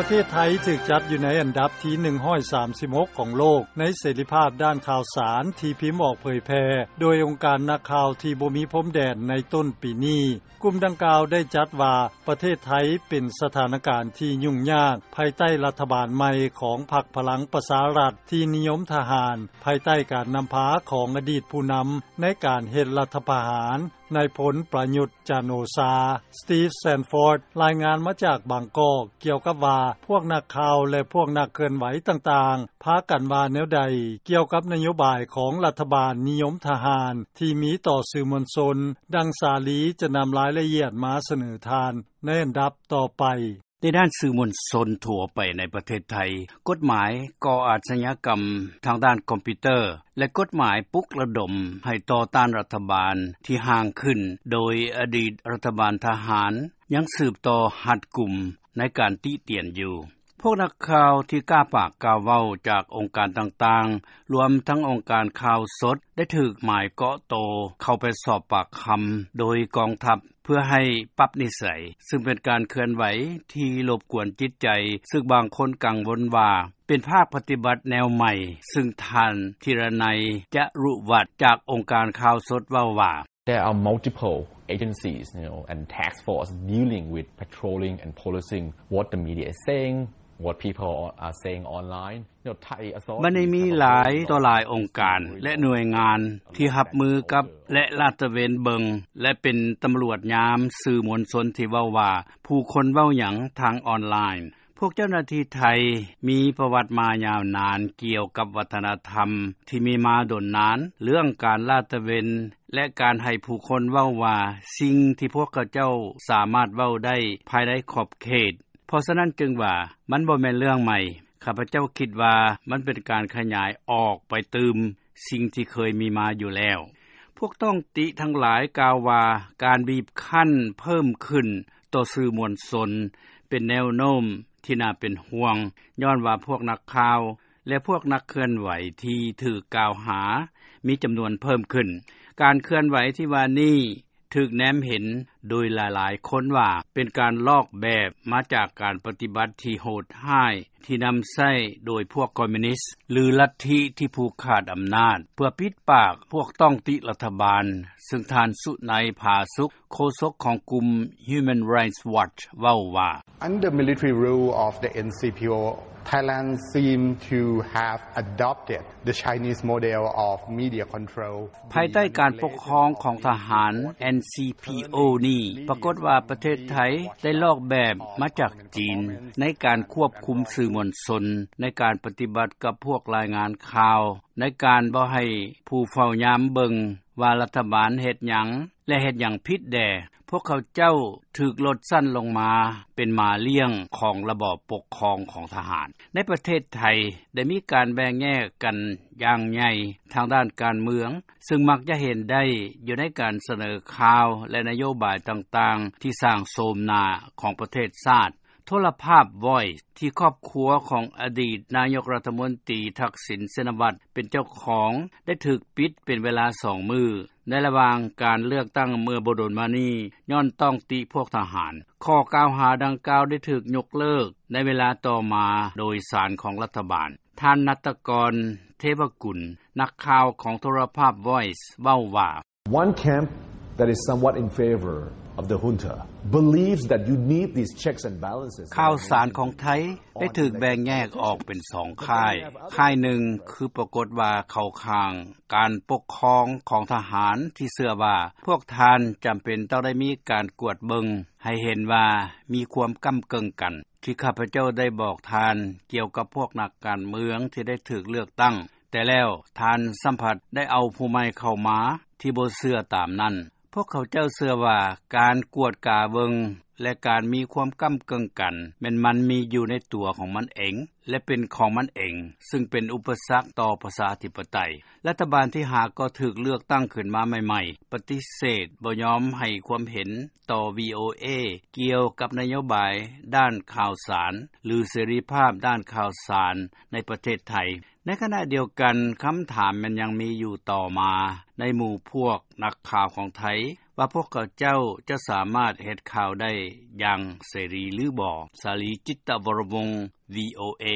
ປະເທດໄທຖືກຈັດຢູ່ໃນອັນດັບທີ ໜຶ່ງຮ້ອຍສາມສິບຫົກ ຂອງໂລກ ໃນເສລີພາບດ້ານຂ່າວສານທີ່ພິມອອກເຜີຍແຜ່ ໂດຍອົງການນັກຂ່າວທີ່ບໍ່ມີພົມແດນໃນຕົ້ນປີນີ້. ກຸ່ມດັ່ງກ່າວໄດ້ຈັດວ່າ ປະເທດໄທເປັນສະຖານະການທີ່ຫຍຸ້ງຍາກ ພາຍໃຕ້ລັດຖະບານໃໝ່ຂອງພັກພະລັງປະຊາລັດ ທີ່ນິຍົມທະຫານ ພາຍໃຕ້ການນຳພາຂອງອະດີດຜູ້ນຳໃນການເຮັດລັດຖະປະຫານ ນາຍພົນປະຍຸດ ຈັນໂອຊາ. ສະຕີຟ ແຊນຟອດ ລາຍງານມາຈາກບາງກອກ ກ່ຽວກັບວ່າ ພວກນັກຂ່າວ ແລະ ພວກນັກເຄື່ອນໄຫວຕ່າງໆ ພາກັນວ່າແນວໃດ ກ່ຽວກັບນະໂຍບາຍຂອງລັດຖະບານນິຍົມທະຫານ ທີ່ມີຕໍ່ສື່ມວນຊົນ, ດັ່ງ ສາລີ ຈະນຳລາຍລະອຽດມາສະເໜີທ່ານໃນອັນດັບຕໍ່ໄປ. ໃນດ້ານສື່ມວນຊົນທົ່ວໄປໃນປະເທດໄທ, ກົດໝາຍກໍ່ອາຊະຍາກຳທາງດ້ານຄອມພິວເຕີ ແລະ ກົດໝາຍປຸກລະດົມໃຫ້ຕໍ່ຕ້ານລັດຖະບານທີ່ຮ່າງຂຶ້ນໂດຍອະດີດລັດຖະບານທະຫານ ຍັງສືບຕໍ່ຮັດກຸມໃນການຕິຕຽນຢູ່. ພວກນັກຂ່າວທີ່ກ້າປາກກ້າເວົ້າຈາກອົງການຕ່າງໆ, ລວມທັງອົງການຂ່າວສົດ ໄດ້ຖືກໝາຍເກາະໂຕເຂົ້າໄປສອບປາກຄຳໂດຍກອງທັບ ເພື່ອໃຫ້ປັບນິໄສ, ຊຶ່ງເປັນການເຄື່ອນໄຫວທີ່ລົບກວນຈິດໃຈ, ຊຶ່ງບາງຄົນກັງວົນວ່າເປັນພາກປະຕິບັດແນວໃໝ່, ຊຶ່ງທ່ານ ທີລະໄນ ຈະລຸວັດ ຈາກອົງການຂ່າວສົດເວົ້າວ່າ There are multiple agencies, you know, and task force dealing with patrolling and policing what the media is saying, what people are saying online. ບັດນີ້ມີຫຼາຍຕໍ່ຫຼາຍອົງການ ແລະ ໜ່ວຍງານທີ່ຮັບມືກັບ ແລະ ລາດຕະເວນເບິ່ງ ແລະ ເປັນຕຳຫຼວດຍາມສື່ມວນຊົນທີ່ເວົ້າວ່າ ຜູ້ຄົນເວົ້າຫຍັງທາງອອນລາຍ. ພວກເຈົ້າໜ້າທີ່ໄທມີປະຫວັດມາຍາວນານກ່ຽວກັບວັດທະນະທຳທີ່ມີມາດົນນານ ເລື່ອງການລາດຕະເວນ ແລະ ການໃຫ້ຜູ້ຄົນເວົ້າວ່າ ສິ່ງທີ່ພວກເຂົາເຈົ້າສາມາດເວົ້າໄດ້ພາຍໃນຂອບເຂດ. ເພາະສະນັ້ນຈຶ່ງວ່າມັນບໍ່ແມ່ນເລື່ອງໃໝ່. ຂ້າພະເຈົ້າຄິດວ່າມັນເປັນການຂະຫຍາຍອອກໄປຕື່ມສິ່ງທີ່ເຄີຍມີມາຢູ່ແລ້ວ. ພວກຕ້ອງຕິທັງຫຼາຍກ່າວວ່າ ການບີບຄັ້ນເພີ່ມຂຶ້ນຕໍ່ສື່ມວນຊົນເປັນແນວໂນ້ມທີ່ໜ້າເປັນຫ່ວງ, ຍ້ອນວ່າພວກນັກຂ່າວ ແລະ ພວກນັກເຄື່ອນໄຫວທີ່ຖືກກ່າວຫາມີຈຳນວນເພີ່ມຂຶ້ນ. ການເຄື່ອນໄຫວທີ່ວ່ານີ້ ຖືກແນມເຫັນໂດຍຫຼາຍໆຄົນວ່າ ເປັນການລອກແບບມາຈາກການປະຕິບັດທີ່ໂຫດຮ້າຍທີ່ນຳໃຊ້ໂດຍພວກຄອມມິວນິດ ຫຼື ລັດທິທີ່ຜູກຂາດອຳນາດ ເພື່ອປິດປາກພວກຕ້ອງຕິລັດຖະບານ, ຊຶ່ງທ່ານ ສຸໄນ ຜາສຸກ ໂຄສົກຂອງກຸ່ມ Human Rights Watch ເວົ້າວ່າ Under military rule of the N C P O, Thailand seem to have adopted the Chinese model of media control. ພາຍໃຕ້ການປົກຄອງຂອງທະຫານ ເອັນ ຊີ ພີ ໂອ ນີ້ ປາກົດວ່າປະເທດໄທໄດ້ລອກແບບມາຈາກຈີນ ໃນການຄວບຄຸມສື່ມວນຊົນ, ໃນການປະຕິບັດກັບພວກລາຍງານຂ່າວ, ໃນການບໍ່ໃຫ້ຜູ້ເຝົ້າຍາມເບິ່ງວ່າລັດຖະບານເຮັດຫຍັງ ແລະ ເຮັດຫຍັງຜິດແດ່. ພວກເຂົາເຈົ້າຖືກລົດຊັ້ນລົງມາເປັນໝາລ້ຽງຂອງລະບອບປົກຄອງຂອງທະຫານ. ໃນປະເທດໄທໄດ້ມີການແບ່ງແຍກກັນຢ່າງໃຫຍ່ທາງດ້ານການເມືອງ, ຊຶ່ງມັກຈະເຫັນໄດ້ຢູ່ໃນການສະເໜີຂ່າວ ແລະ ນະໂຍບາຍຕ່າງໆ ທີ່ສ້າງໂສມໜ້າຂອງປະເທດຊາດ. ໂທລະພາບ Voice ທີ່ຄອບຄົວຂອງອະດີດນາຍົກລັດຖະມົນຕີ ທັກສິນ ຊິນນະວັດ ເປັນເຈົ້າຂອງ ໄດ້ຖືກປິດເປັນເວລາສອງມື້ ໃນລະຫວ່າງການເລືອກຕັ້ງເມື່ອບໍ່ດົນມານີ້ ຍ້ອນຕ້ອງຕິພວກທະຫານ. ຂໍ້ກ່າວຫາດັ່ງກ່າວໄດ້ຖືກຍົກເລີກໃນເວລາຕໍ່ມາໂດຍສານຂອງລັດຖະບານ. ທ່ານ ນັດຕະກອນ ເທວະກຸນ ນັກຂ່າວຂອງໂທລະພາບ Voice ເວົ້າວ່າ One camp that is somewhat in favor of the junta believes that you need these checks and balances. ຂ່າວສານຂອງໄທໄດ້ຖືກແບ່ງແຍກອອກເປັນສອງຄ້າຍ. ຄ້າຍໜຶ່ງຄືປາກົດວ່າເຂົ້າຂ້າງການປົກຄອງຂອງທະຫານ ທີ່ເຊື່ອວ່າພວກທ່ານຈຳເປັນຕ້ອງໄດ້ມີການກວດເບິ່ງໃຫ້ເຫັນວ່າມີຄວາມກ້ຳເກິ່ງກັນ ທີ່ຂ້າພະເຈົ້າໄດ້ບອກທ່ານກ່ຽວກັບພວກນັກການເມືອງທີ່ໄດ້ຖືກເລືອກຕັ້ງ. ແຕ່ແລ້ວທ່ານຊ້ຳພັດໄດ້ເອົາຜູ້ໃໝ່ເຂົ້າມາທີ່ບໍ່ເຊື່ອຕາມນັ້ນ. ພວກເຂົາເຈົ້າເຊື່ອວ່າການກວດກາເບິ່ງ ແລະ ການມີຄວາມກ້ຳເກິ່ງກັນ ແມ່ນມັນມີຢູ່ໃນຕົວຂອງມັນເອງ ແລະ ເປັນຂອງມັນເອງ, ຊຶ່ງເປັນອຸປະສັກຕໍ່ປະຊາທິປະໄຕ. ລັດຖະບານທີ່ຫາກໍຖືກເລືອກຕັ້ງຂຶ້ນມາໃໝ່ໆ ປະຕິເສດບໍ່ຍອມໃຫ້ຄວາມເຫັນຕໍ່ ວີໂອເອ ກ່ຽວກັບນະໂຍບາຍດ້ານຂ່າວສານ ຫຼື ເສລີພາບດ້ານຂ່າວສານໃນປະເທດໄທ. ໃນຂະນະດຽວກັນ, ຄຳຖາມແມ່ນຍັງມີຢູ່ຕໍ່ມາໃນໝູ່ພວກນັກຂ່າວຂອງໄທ ວ່າ ພວກເຂົາເຈົ້າ ຈະສາມາດ ເຮັດຂ່າວໄດ້ ຢ່າງເສລີ ຫຼືບໍ່. ສາລີ ຈິດຕະວໍລະວົງ VOA.